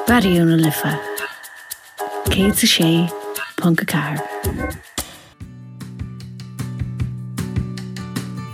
Raidió na Life 106.4.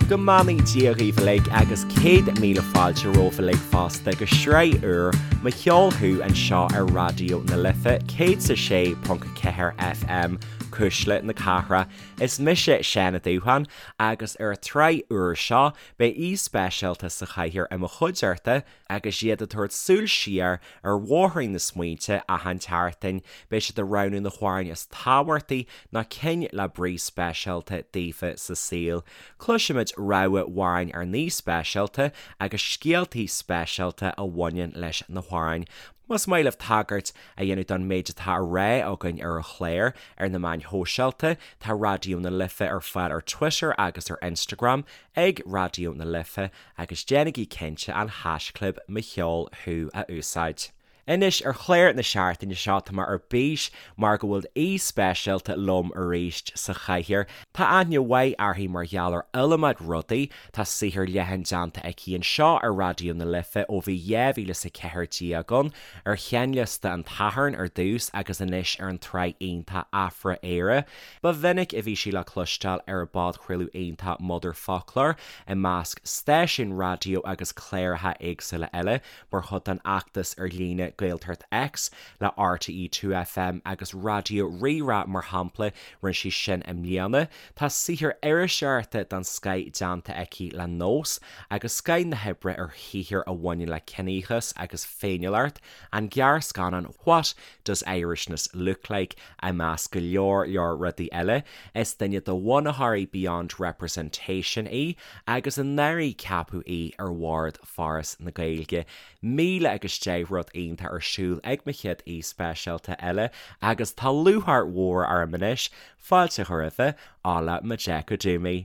Go mbeannaí Dia dhaoibh uilig agus 100,000 fáilte romhaibh uilig fosta go sraith úr Mo Cheol Thú anseo ar Raidió na Life 106.4 FM, Cuisle na Cathrach. Is mise Seán Ó Dúcháin agus ar an tsraith úr seo beidh aoi speisialta sa chathaoir i mo chuideachta Agus iad ag tabhairt súil siar ar bhóithrín na smaointe achan tseachtain, beidh siad ag roghnú na hamhráin is tábhachtaí nó cinn le brí speisialta daofa sa saol. Cloisfimid rogha amhráin ár n-aoi speisialta agus scéaltaí speisialta a bhaineann leis na hamhráin. Más maith libh tagairt a dhéanamh don méid atá á rá againn ar an chlár ar na meáin shóisialta, tá Raidió na Life ar fáil ar Twitter agus ar Instagram ag Raidió na Life agus déanaigí cinnte an haischlib Mo Cheol Thú a úsáid. Anois, ar chlár na seachtaine seo, tá mé ar bís mar go bhfuil aoi speisialta liom arís sa chathaoir. Tá aithne mhaith uirthi mar gheall ar iliomad rudaí, tá saothar leathan déanta aici anseo ar Raidió na Life ó bhí 2014 ann, ar sheinnliosta an tSathairn ar dtús agus anois ar an tsraith iontach Afra-Éire. Ba mhinic a bhí sí le cloisteáil ar an bpodchraoladh iontach Motherfoclóir, i measc stáisiún raidió agus cláracha éagsúla eile, mar chuid den fheachtas ar líne Gaeltacht X le RTÉ 2FM agus Raidió Rí-Rá mar shampla, rinne sí sin i mbliana. Tá saothar iriseoireachta den scoith déanta aici le Nós, agus scoith na hoibre ar shaothair a bhaineann le ciníochas agus féiniúlacht, an gearrscannán What Does Irishness Look Like? I measc go leor leor rudaí eile, is duine de bhunaitheoirí Beyond Representation í agus anuraidh ceapadh í ar bhord Foras na Gaeilge. 1010 rud iontach ar siúl ag mo chéad aoi speisialta eile agus tá lúcháir mhór orm anois fáilte a chur roimhe, Ola Majekodunmi.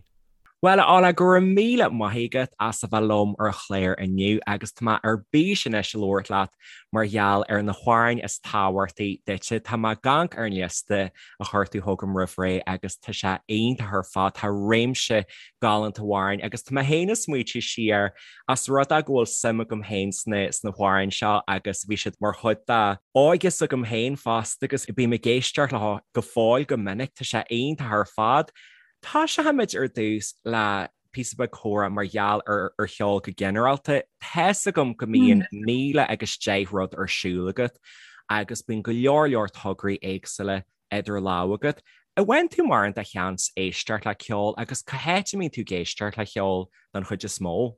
Bhuel, a Ola, go raibh míle maith agat as a bheith liom ar an chlár inniu agus tá mé ar bís anois a labhairt leat mar gheall ar na hamhráin is tábhachtaí duitse. Tá mé ag amharc ar an liosta a chuir tú chugam roimh ré agus tá sé iontach ar fad. Tá réimse galánta amhráin agus tá mé féin ag smaoitiú siar as rud é go bhfuil suim agam féin sna sna hamhráin seo agus bhí siad mar chuid de óige s'agam féin fosta agus bím ag éisteacht leo go fóill go minic. Tá sé iontach ar fad. Tosóimid ar dtús le píosa beag comhrá mar gheall ar ar cheol go ginearálta. Tá's agam go mbíonn 1010 rud ar siúl agat agus bíonn go leor leor tograí éagsúla idir lámha agat. An bhfaigheann tú mórán de sheans éisteacht le ceol agus cá háit a mbíonn tú ag éisteacht le ceol don chuid is mó?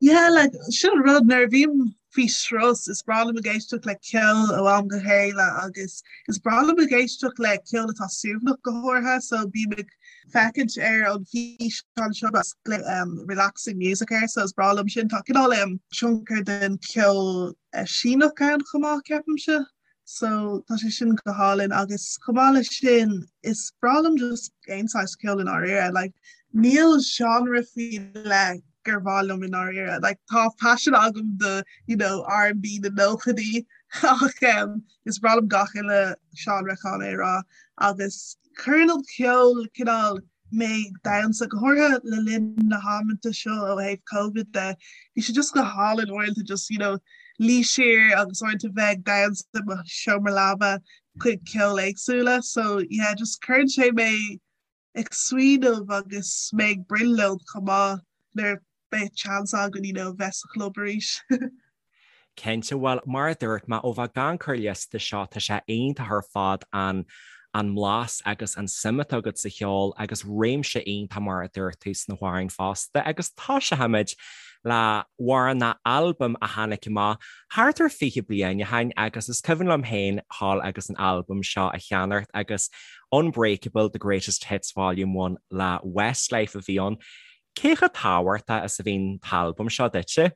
Yeah, like, sin an rud, nuair a bhím faoi strus, is breá liom ag éisteacht le ceol ó am go chéile agus is breá liom ag éisteacht le ceol atá suaimhneach go háirithe, so bím ag féachaint ar an físeán seo agus um, relaxing music air, so is breá liom sin. Tá cineál um, tionchar den ceol uh, Síneach ann chomh maith, ceapaimse. So tá sé sin go hálainn agus chomh maith leis sin is breá liom just aon saghas ceoil i ndáiríre. Like, níl genre faoi leith gur mhaith liom i ndáiríre. Like, tá paisean agam do you know, R&B na nóchaidí ach um, is breá liom gach uile genre chun é a rá agus cuireann an ceol cineál mé ag damhsa, go háirithe le linn na hamanta seo ó thaobh Covid de. Bhí sé just go hálainn uaireanta just, you know, luí siar agus uaireanta bheith ag damhsa i mo sheomra leaba chuig ceol éagsúla. So yeah, just cuireann sé mé ag smaoineamh agus mé ag brionglóid chomh maith nuair a bheidh chance againn, you know, bheith sa chlub arís. Cinnte, bhuel, mar a dúirt mé, ó bheith ag amharc ar an liosta seo, tá sé iontach ar fad an an mblas agus an suim atá agat sa cheol agus réimse iontach mar a dúirt tú sna hamhráin fosta agus tosóimid le hamhrán nó albam a tháinig amach thart ar 20 bliain ó shin agus is cuimhin liom féin dhul agus an albam seo a cheannacht agus Unbreakable, The Greatest Hits Volume 1 le Westlife a bhí ann. Cé chomh tábhachtach is a bhí an t-albam seo duitse?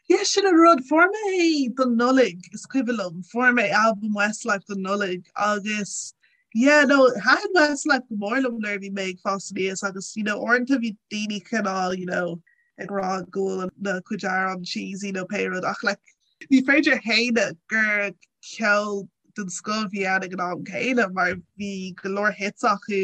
Yeah, sin an rud. Fuair mé é don Nollaig, is cuimhin liom. Fuair mé albam Westlife don Nollaig agus yeah, no, thaitin Westlife go mór liom nuair a bhí mé ag fás aníos agus you know, uaireanta bhí daoine cineál, you know, ag rá go bhfuil na cuid amhrán cheesy nó pé rud ach like, ní féidir a shéanadh gur ceol den scoth a bhí ann ag an am céanna mar bhí go leor hits acu,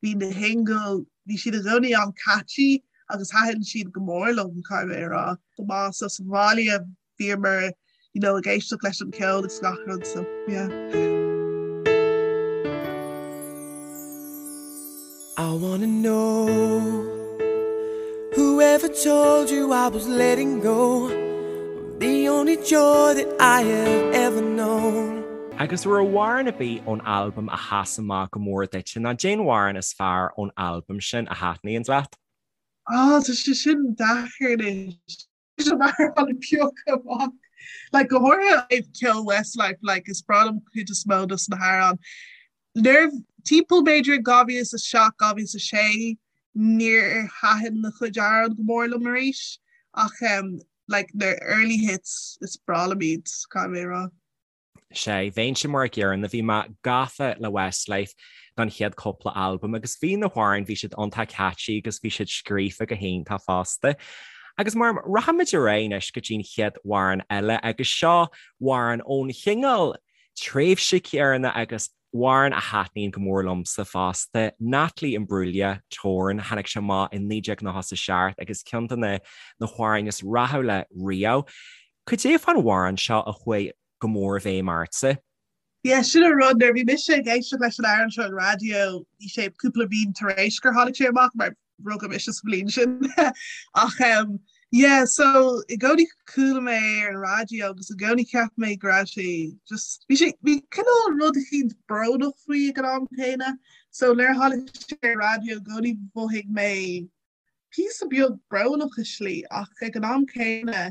bhí na singles, bhí siad i gcónaí an-catchy agus thaitin siad go mór liom, caithfidh mé a rá. Go maith so sa bhaile bhíomar. you know ag éisteacht leis an ceol agus gach rud so yeah. I wanna know Whoever told you I was letting go The only joy that I have ever known Agus an raibh amhrán ar bith ón albam a sheas amach go mór duit, nó cén amhrán is fearr ón albam sin a thaitníonns leat? Á, tá sé sin deacair anois. Mar an piocadh amach. Like, go háirithe ceol Westlife, like, is breá liom cuid is mó dos na hamhráin. Nuair timpeall b'fhéidir 2007, 2006, níor thaitin a chuid amhrán go mór liom arís ach um, like, na early hits is breá liom iad, caithfidh mé a rá. Sea, bheinnse mar a gcéanna, bhí mé gafa le Westlife don chéad cúpla albam agus bhí na hamhráin, bhí siad iontach catchy agus bhí siad scríofa go hiontach fosta. Agus mar rachaimid ar aghaidh anois go dtí an chéad amhrán eile agus seo amhrán ón chineál tréimhse céanna agus amhrán a thaitníonn go mór liomsa fosta, Natalie Imbruglia, Torn, tháinig sé amach i 1997 agus ceann de na na hamhráin is rathúla riamh. Cad é fán amhrán seo a chuaigh go mór i bhfeidhm ortsa? Yeah, sin an rud, nuair a bhí mise ag éisteacht leis an amhrán seo ar an raidió, bhí sé cúpla bliain tar éis gur tháinig sé amach, mar rugadh mise sa bhliain sin. Ach um, yeah, so i gcónaí chuala mé ar an raidió agus i gcónaí cheap mé go raibh sé just bhí sé bhí cineál rud eicínt brónach faoi ag an am céanna. So nuair a tháinig sé ar an raidió i gcónaí mhothaigh mé píosa beag brónach i slí ach ag an am céanna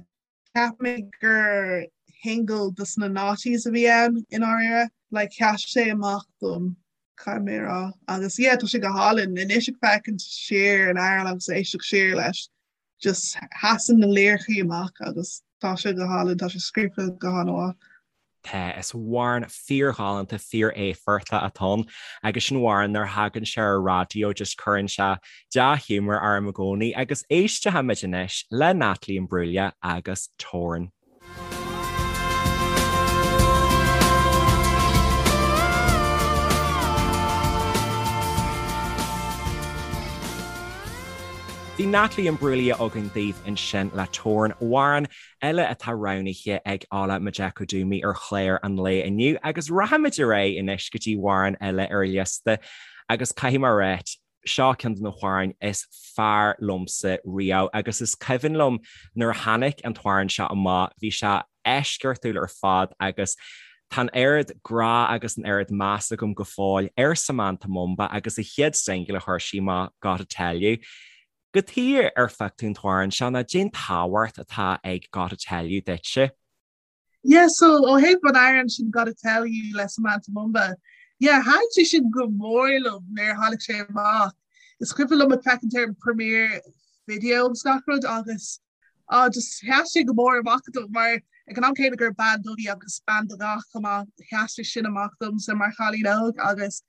Cheap mé gur shingle dos na noughties a bhí ann i ndáiríre. Like sheas sé amach dom, caithfidh mé a rá. Agus yeah, tá sé go hálainn. Anois ag féachaint siar ar an amhrán agus éisteacht siar leis, just sheasann na liricí amach agus tá sé go hálainn, tá sé scríofa go han-mhaith. Tá, is amhrán fíorghalánta, fíor-éifeachtach atá ann agus sin amhrán nuair a thagann sé ar an raidió just cuireann sé dea-ghiúmar orm i gcónaí agus éistfimid anois le Natalie Imbruglia agus Torn. Bhí Natalie Imbruglia againn daoibh ansin le Torn, amhrán eile atá roghnaithe ag Ola Majekodunmi ar chlár an lae inniu agus rachaimid ar aghaidh anois go dtí amhrán eile ar an liosta agus caithfidh mé a ráit, seo ceann de na hamhráin is fearr liomsa riamh agus is cuimhin liom nuair a tháinig an t-amhrán seo amach, bhí sé eisceachtúil ar fad agus tá an oiread grá agus an oiread meas agam go fóill ar Samantha Mumba agus a chéad singil a chuir sí amach, Gotta Tell You. Cad chuige ar phioc tú an t-amhrán seo nó cén tábhacht atá ag Gotta Tell You duitse. Yeah, so ó thaobh an amhráin sin Gotta Tell You le Samantha Mumba, yeah, thaitin sé sin go mór liom nuair a tháinig sé amach. Is cuimhin liom ag féachaint ar an premiere video agus gach rud agus Ah just sheas sé go mór amach dom mar ag an am céanna gur bean dubh í agus bean de dhath chomh maith, sheas sé sin amach domsa mar chailín óg agus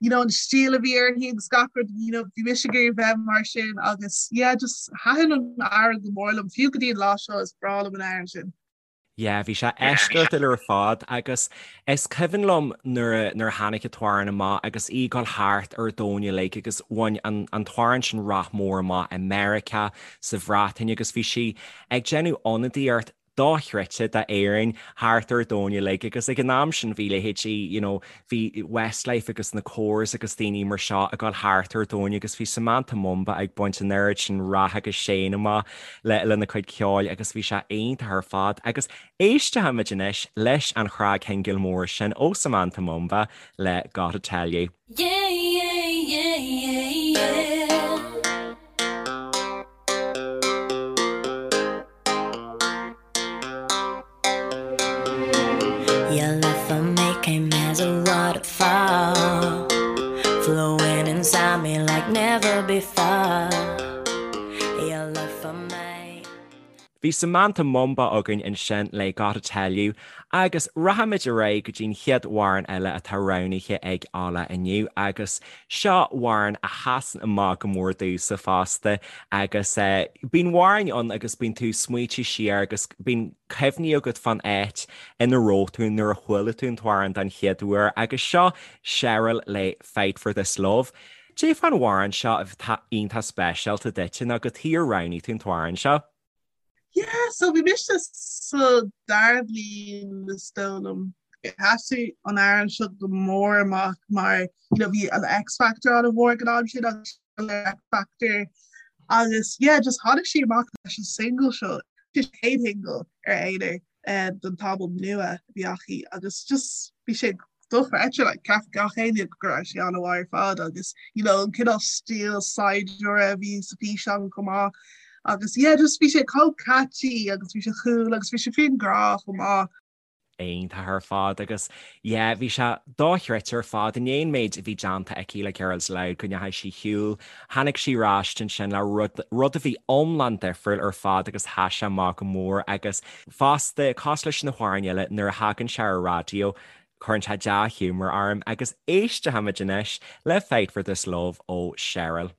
you know an stíl a bhí uirthi agus gach rud you know bhí mise ag iarraidh bheith mar sin agus yeah just thaitin an amhrán go mór liom fiú go dtí an lá seo is breá liom an amhrán sin. Yeah, bhí sé eisceachtúil ar fad agus is cuimhin liom nuair a nuair a tháinig an t-amhrán amach agus í ag dul thart ar an domhan uilig agus bhain an an t-amhrán sin rath mór amach i Meiriceá, sa Bhreatain agus bhí sí ag déanamh ionadaíocht dochreidte d'Éirinn thart ar an domhan uilig agus ag an am sin bhí leithéidí you know bhí Westlife agus na Corrs agus daoine mar seo ag dul thart ar an domhan agus bhí Samantha Mumba ag baint an oiread sin rath agus séan amach le lena cuid ceoil agus bhí sé iontach ar fad agus éistfimid anois leis an chnagshingil mór sin ó Samantha Mumba le Gotta Tell You. Yeah yeah yeah yeah yeah. Your love for me came as a waterfall Flowing inside me like never before Your love for me Bhí Samantha Mumba againn ansin le Gotta Tell You agus rachaimid ar aghaidh go dtí'n chéad amhrán eile atá roghnaithe ag Ola inniu agus Seo amhrán a sheasann amach go mór domhsa fosta agus bíonn amhráin ann agus bíonn tú ag smaoitiú siar agus bíonn cuimhní agat fán áit ina raibh tú nuair a chuala tú an t-amhrán den chéad uair agus seo Cheryl le Fight For This Love. Cad é fán amhrán seo atá iontach speisialta duit nó cad chuige ar roghnaigh tú an t-amhrán seo. Yeah, so bhí mise sa dara bliain is dóigh liom. Sheas an amhrán seo go mór amach mar you know bhí an X Factor an-mhór ag an am sin agus X Factor agus yeah just tháinig sí amach leis an single seo chéad shingle ar aonar eh, den t-albam nua a bhí aici agus just bhí sé dochreidte like cheap gach éinne go raibh sé an-mhaith ar fad agus you know an cineál stíl saighdiúra a bhí sa físeán chomh maith agus yeah just bhí sé chomh catchy agus bhí sé cool agus bhí sé faoin grá chomh maith. Iontach ar fad agus yeah bhí sé dochreidte ar fad in aon méid a bhí déanta aici le Girls Aloud go ndeachaigh sí ar shiúl, tháinig sí ar ais ansin le rud, rud a bhí iomlán difriúil ar fad agus sheas sé amach go mór agus fosta cosúil leis na hamhráin eile nuair a thagann sé ar an raidió cuireann sé dea-ghiúmar orm agus éistfimid anois le Fight for This Love ó Cheryl.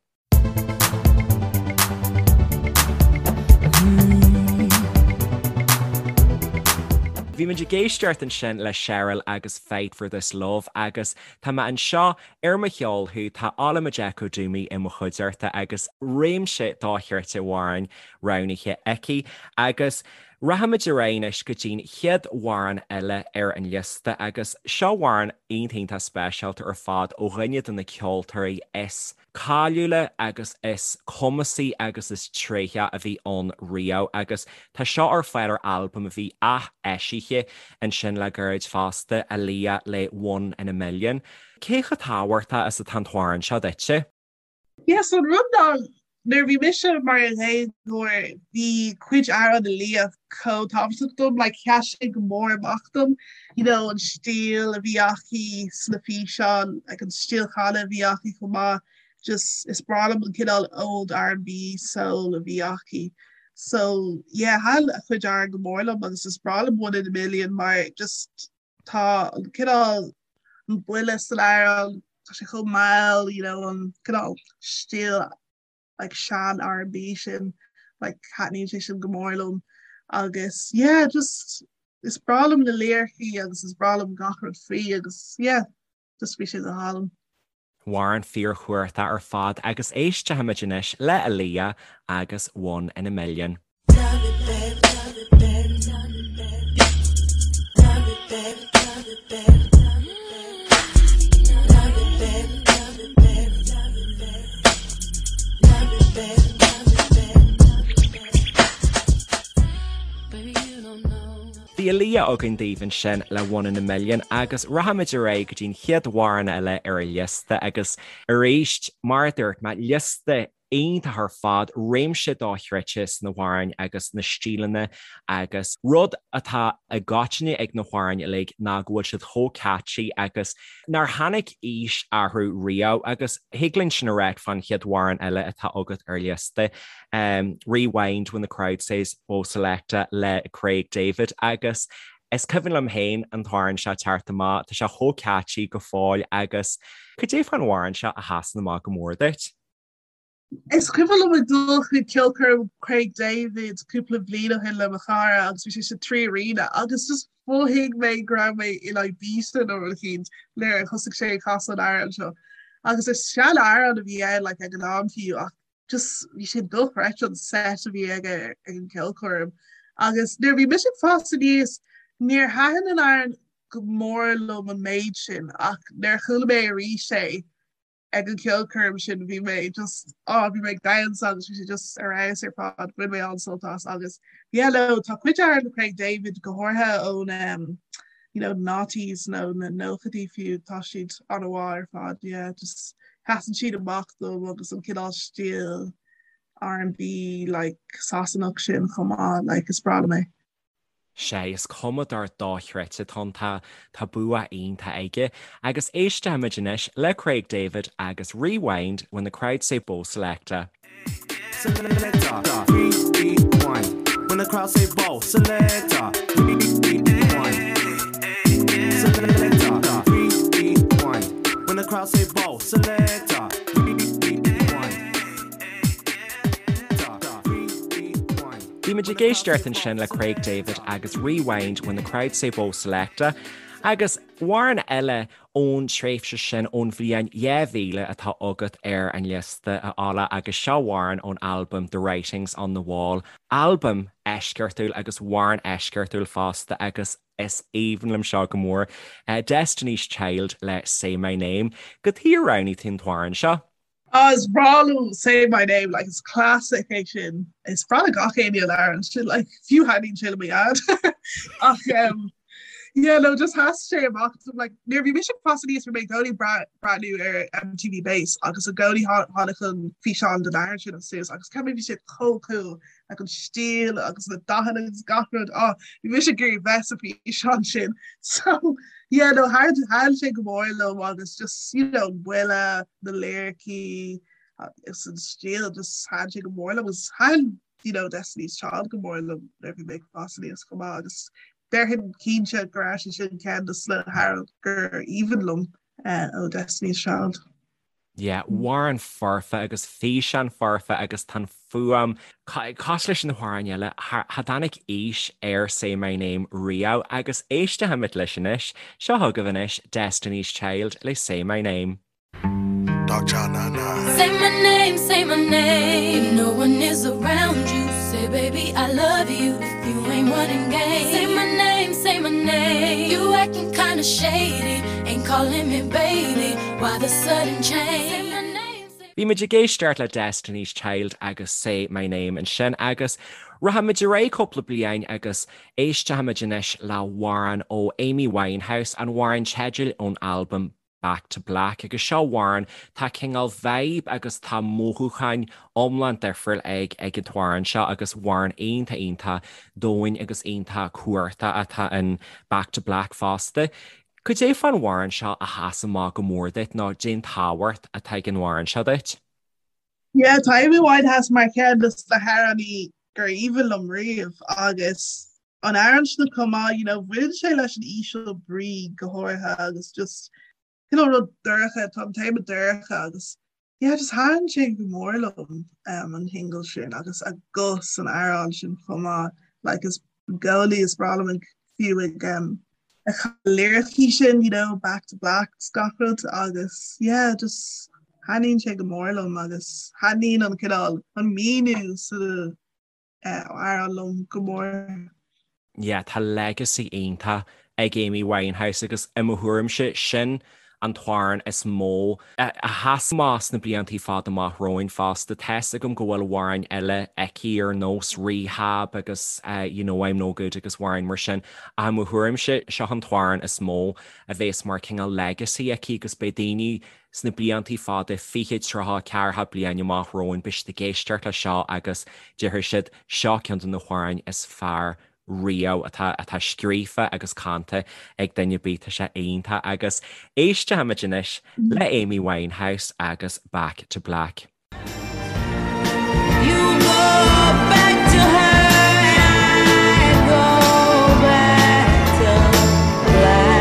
Bhí muid ag éisteacht ansin le Cheryl agus Fight for This Love agus tá mé anseo ar Mo Cheol Thú, tá Ola Majekodunmi i mo chuideachta agus réimse dochreidte amhrán roghnaithe aici agus Rachaimid ar aghaidh anois go dtí'n chéad amhrán eile ar an liosta agus seo amhrán iontach iontach speisialta ar fad ó dhuine de na ceoltóirí is cáiliúla agus is cumasaí agus is tréithí a bhí ann riamh agus tá seo ar fáil ar albam a bhí ath-eisithe ansin le gairid fosta, Aaliyah le One in a Million. Cé chomh tábhachtach is atá an t-amhrán seo duitse? Yes, an rud ná nuair a bhí mise mar dhéagóir bhí cuid amhrán Aaliyah chomh tábhachtach dom, like sheas sé go mór amach dom, you know an stíl a bhí aici sna físeáin, like an stíl canadh a bhí aici chomh maith, just is breá liom an cineál old R&B soul a bhí aici. So yeah, thaitin a cuid amhrán go mór liom agus is breá liom One in a Million mar just Tá an cineál an buille san amhrán, tá sé chomh mall, you know, an cineál stíl like sean R&B sin, like taitníonn sé sin go mór liom agus yeah, just is breá liom na liricí agus is breá liom gach rud faoi agus yeah, just bhí sé go hálainn. Amhrán fíorchumhachtach ar fad agus éistfimid anois le Aaliyah agus One in a Million. Bhí Aaliyah againn daoibh ansin le One in a Million agus rachaimid ar aghaidh go dtí'n chéad amhrán eile ar an liosta agus arís, mar a dúirt mé, liosta iontach ar fad, réimse dochreidte sna hamhráin agus na stíleanna agus rud atá i gcoitinne ag na hamhráin uilig ná go bhfuil siad chomh catchy agus nár tháinig aois orthu riamh agus thig linn sin a ráit fán chéad amhrán eile atá agat ar liosta. Rewind When the Crowd Says Bo Selecta le Craig David agus is cuimhin liom féin an t-amhrán seo teacht amach, tá sé chomh catchy go fóill agus cad é fán amhrán seo a sheasann amach go mór duit? Is cuimhin liom ag dul chuig ceolchoirm Craig David cúpla bliain ó shin le mo chara agus bhí sé sa 3Arena agus just mhothaigh mé go raibh mé in Ibiza nó rud eicínt nuair a thosaigh sé ag casadh an amhrán seo. Agus is sean-amhrán a bhí ann like ag an am fiú ach just bhí sé dochreidte an set a bhí aige ag an gceolchoirm. Agus nuair a bhí mise ag fás aníos níor thaitin an amhrán go mór liom an méid sin ach nuair a chuala mé arís é ag an gceolchoirm sin bhí mé just á bhí mé ag damhsa agus bhí sé just ar fheabhas ar fad bhain mé an-sult as agus yeah no tá cuid amhrán le Craig David go háirithe ón um, you know, noughties nó na nóchaidí fiú, tá siad an-mhaith ar fad, yeah, just sheasann siad amach dom agus an cineál stíl R&B like Sasanach sin chomh maith, like is breá liom é. Sea, is cumadóir dochreidte atá ann, tá tá bua iontach aige. Agus éistfimid anois le Craig David agus Rewind When the Crowd Say Bo Selecta. Selecta, rewind. When the crowd say Bo, selecta, rewind. Selecta, rewind. When the crowd say Bo, selecta, rewind. Bhí muid ag éisteacht ansin le Craig David agus Rewind When the Crowd Say Bo Selecta. Agus amhrán eile ón tréimhse sin, ón bhliain 2000 atá agat ar an liosta, a Ola, agus seo amhrán ón albam The Writing's on the Wall, albam eisceachtúil agus amhrán eisceachtúil fosta agus is aoibhinn liom seo go mór, Destiny's Child le Say My Name. Cad chuige ar roghnaigh tú an t-amhrán seo? Ah is breá liom Say My Name like is classic é sin. Is breá le gach éinne an amhrán sin like fiú thaitníonn sé le mo dhaid. Ach um, yeah no just sheas sé amach dom like nuair a bhí mise ag fás aníos bhí mé i gcónaí breathnú ar MTV Base agus i gcónaí tháinig an físeán den amhrán sin suas agus ceap mé bhí sé chomh cool like an stíl agus na dathanna agus gach rud ah bhí mise ag iarraidh bheith sa físeán sin so yeah no thaitin sé go mór liom agus just you know buille na liricí agus an stíl just thaitin sé go mór liom agus thaitin you know Destiny's Child go mór liom nuair a bhí mé ag fás aníos chomh maith agus déarfainn cinnte go raibh sé sin ceann de na hamhráin gur aoibhinn liom uh, ó Destiny's Child. Yeah, amhrán foirfe agus físeán foirfe agus tá an fuaim cosúil leis na hamhráin eile, cha dtáinig aois ar Say My Name riamh agus éistfimid leis anois. Seo chugaibh anois Destiny's Child le Say My Name. Say my name, say my name. If no one is around you, say baby I love you. If you ain't running game, say my name, say my name. You acting kinda shady, ain't calling me baby. Why the sudden change? Bhí muid ag éisteacht le Destiny's Child agus Say My Name ansin agus rachaimid ar aghaidh cúpla bliain agus éistfimid anois le hamhrán ó Amy Winehouse, an amhrán teidil ón albam Back to Black agus seo amhrán, tá cineál vibe agus tá mothúcháin iomlán difriúil ag ag an t-amhrán seo agus amhrán iontach iontach domhain agus iontach cumhachtach atá in Back to Black fosta. Cad é fán amhrán seo a sheas amach go mór duit nó cén tábhacht atá ag an amhrán seo duit? Yeah, tá Amy Winehouse mar cheann de na hamhránaí gur aoibhinn liom riamh agus an amhrán sin chomh maith, you know, bhain sé leis an íseal brí go háirithe agus just cineál rud dorcha, tá an téama dorcha agus Yeah just thaitin sé go mór liom um, an singil sin agus a guth san amhrán sin chomh maith like is i gcónaí is breá liom ag fiú ag um, a liricí sin you know back to black 's gach rud agus yeah just thaitníonn sé go mór liom agus thaitníonn an cineál an míniú sa amhrán liom go mór. Yeah, tá legacy iontach ag Amy Winehouse agus i mo thuairimse, sin an t-amhrán is mó a sheas amach sna bliantaí fada amach romhainn fosta. Tá's agam go bhfuil amhráin eile aici ar nós Rehab agus You Know I'm No Good agus amhráin mar sin ach i mo thuairimse, seo an t-amhrán is mó a bhéas mar cineál legacy aici agus beidh daoine Sna bliantaí fada, 20, 30, 40 bliain amach romhainn, beidh siad ag éisteacht le seo agus déarfaidh siad, seo ceann de na hamhráin is fearr riamh atá atá scríofa agus canta ag duine ar bith, tá sé iontach agus éistfimid anois le Amy Winehouse agus Back to Black. You go back to her and I go back to black.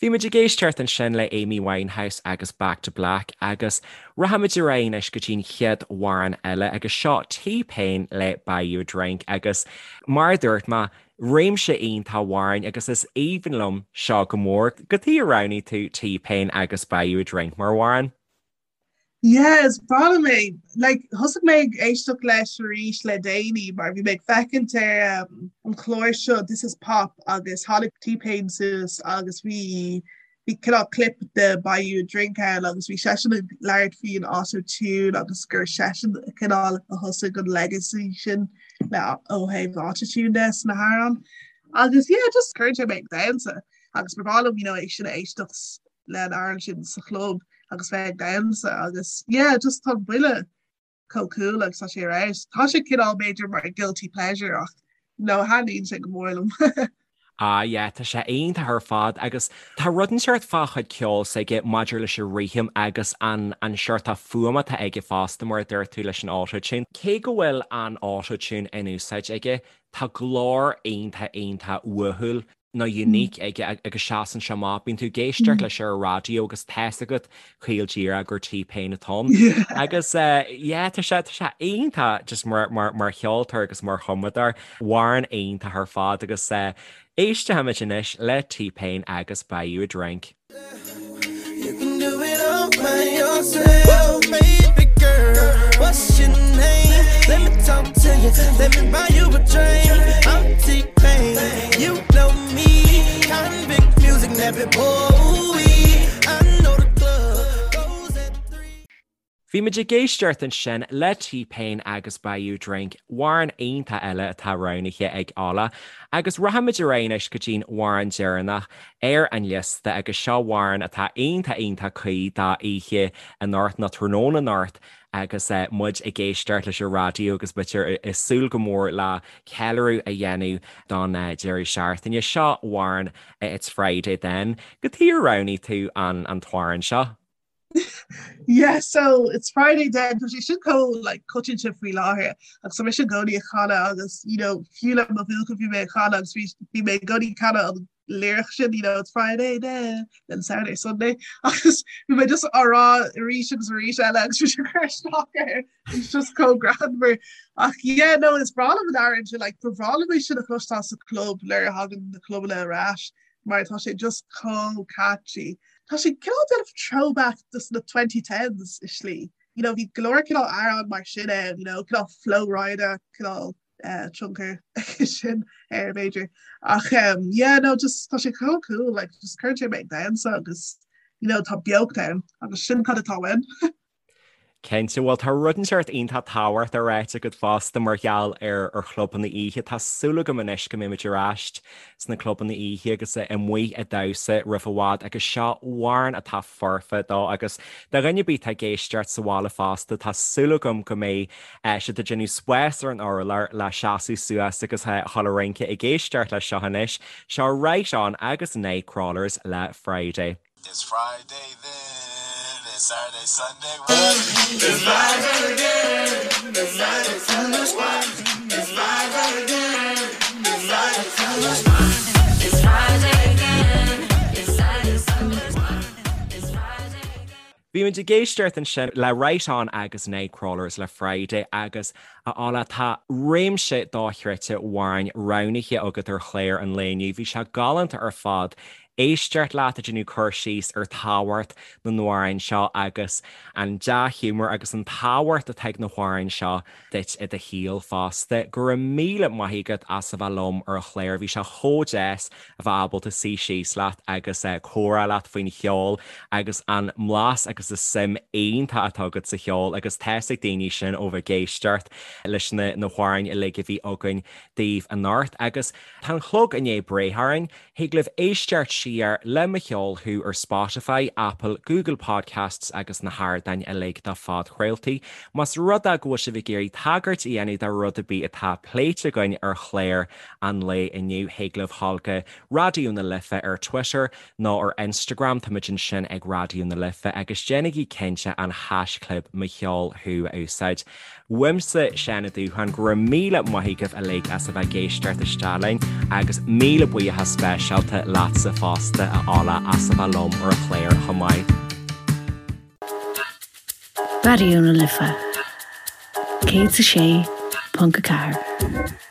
Bhí muid ag éisteacht ansin le Amy Winehouse agus Back to Black agus rachaimid ar aghaidh anois go dtí'n chéad amhrán eile agus seo T-Pain le Buy You a Drink agus mar a dúirt mé Réimse iontach amhráin agus is aoibhinn liom seo go mór. Cad chuige ar roghnaigh tú T-Pain agus Buy You a Drink mar amhrán? Yeah, is breá liom é. Like, thosaigh mé ag éisteacht leis arís le déanaí mar bhí mé ag féachaint ar um, an chlár seo This is Pop agus tháinig T-Pain suas agus bhí bhí cineál clip de Buy You a Drink ann agus bhí seisean ag labhairt faoin autotune agus gur seisean cineál a thosaigh an legacy sin le ó thaobh autotune de sna hamhráin. Agus yeah, just cuireann sé mé ag damhsa agus ba bhreá liom you know, é sin a éisteacht le an amhrán sin sa chlub agus bheith ag damhsa agus yeah, just tá buille chomh cool agus tá sé ar fheabhas. Tá sé cineál b'fhéidir mar guilty pleasure ach no thaitníonn sé go mór liom. Ah yeah, tá sé iontach ar fad agus tá rud inteacht fá chuid ceoil s'aige maidir leis an rithim agus an an seort fuaim atá aige fosta mar a dúirt tú leis an auto-tune. Cé go bhfuil an auto-tune in úsáid aige, tá glór iontach iontach uathúil. nó unique aige agus seasann sé amach. Bíonn tú ag éisteacht leis ar an raidió agus tá's agat caol díreach gur T-Pain atá ann. Agus yeah, tá sé, tá sé iontach just mar, mar, mar cheoltóir agus mar chumadóir. Amhrán iontach ar fad agus éistfimid anois le T-Pain agus Buy You a Drink. You can do it all by yourself, baby girl. What's your name? Let me talk to you. Let me buy you a drink. I'm T-Pain. You know me. Konvict music, never boy. I know the club goes at 3. Bhí muid ag éisteacht ansin le T-Pain agus Buy You a Drink, amhrán iontach eile atá roghnaithe ag Ola. Agus rachaimid ar aghaidh anois go dtí'n amhrán deireanach ar an liosta agus seo amhrán atá iontach iontach cuí do oíche anocht nó tráthnóna anocht agus muid ag éisteacht leis an raidió agus b'fhéidir ag súil go mór le ceiliúradh a dhéanamh don deireadh seachtaine. Seo amhrán It's Friday Then. Cad chuige ar roghnaigh tú an t-amhrán seo? Yeah, so it's Friday then tá sé sin chomh like coitianta faoi láthair agus tá mise i gcónaí ag canadh agus you know fiú le mo bhuachaill bhí mé ag canadh agus bhí bhí mé i gcónaí ag canadh an lyric sin you know it's Friday then then Saturday Sunday agus bhí mé just á rá arís agus arís eile agus bhí sé cur isteach air it's just chomh greannmhar ach yeah no is breá liom an amhrán sin like ba bhreá liom é sin a chloisteáil sa club nuair a thagann na clubanna ar ais mar tá sé just chomh catchy. Tá sé cineál déanamh throwback dos na 2010s i slí. You know, bhí go leor cineál amhrán mar sin ann, you know, cineál Flo Rida, cineál eh, tionchar aige sin air b'fhéidir. Ach um, yeah, no, just tá sé chomh cool, like, just cuireann sé mé ag damhsa agus you know, tá beocht ann agus sin cad atá uaim. Cinnte, bhuel tá rud inteacht iontach tábhachtach ráite agat fosta mar gheall ar ar chlubanna oíche. Tá súil agam anois go mbeimid ar ais sna clubanna oíche agus amuigh ag damhsa roimh i bhfad agus seo amhrán atá foirfe dó agus do dhuine ar bith atá ag éisteacht sa bhaile fosta tá súil agam go mbeidh siad ag déanamh spás ar an urlár le seasamh suas agus a dhul ag rince ag éisteacht leis seo anois. Seo Right On agus Nightcrawlers le Friday. It's Friday then, it's Saturday, Sunday, what? It's Friday again, it's Saturday, Sunday, what? It's Friday again, it's Saturday, Sunday, what? It's Friday again, it's Saturday, Sunday, what? It's Friday again. Bhí muid ag éisteacht ansin le Right On agus Nightcrawlers le Friday agus a Ola tá réimse dochreidte amhráin roghnaithe agat ar chlár an lae inniu. Bhí sé galánta ar fad éisteacht leat ag déanamh cur síos ar tábhacht na n-amhrán seo agus an dea-ghiúmar agus an tábhacht atá ag na hamhráin seo duit i do shaol fosta. Go raibh míle maith agat as a bheith liom ar an chlár. Bhí sé chomh deas a bheith ábalta suí síos leat agus comhrá leat faoin cheol agus an mblas agus an suim iontach atá agat sa cheol agus tá's ag daoine sin ó bheith ag éisteacht leis na hamhráin uilig a bhí againn daoibh anocht. Agus tá an clog i ndiaidh breith orainn. Thig libh éisteacht siar le Mo Cheol Thú ar Spotify, Apple, Google Podcasts agus na hardáin uilig do phodchraoltaí. Más rud é go bhfuil sibh ag iarraidh tagairt a dhéanamh do rud ar bith atá pléite againn ar chlár an lae inniu, thig libh dhul go Raidió na Life ar Twitter nó ar Instagram, táimid ansin ag Raidió na Life, agus déanaigí cinnte an haischlib Mo Cheol Thú a úsáid. Uaimse, Seán Ó Dúcháin, go raibh míle maith agaibh uilig as a bheith ag éisteacht isteach linn agus míle buíochas speisialta leatsa fosta, a Ola, as a bheith liom ar an chlár chomh maith. Raidió na Life 106.4.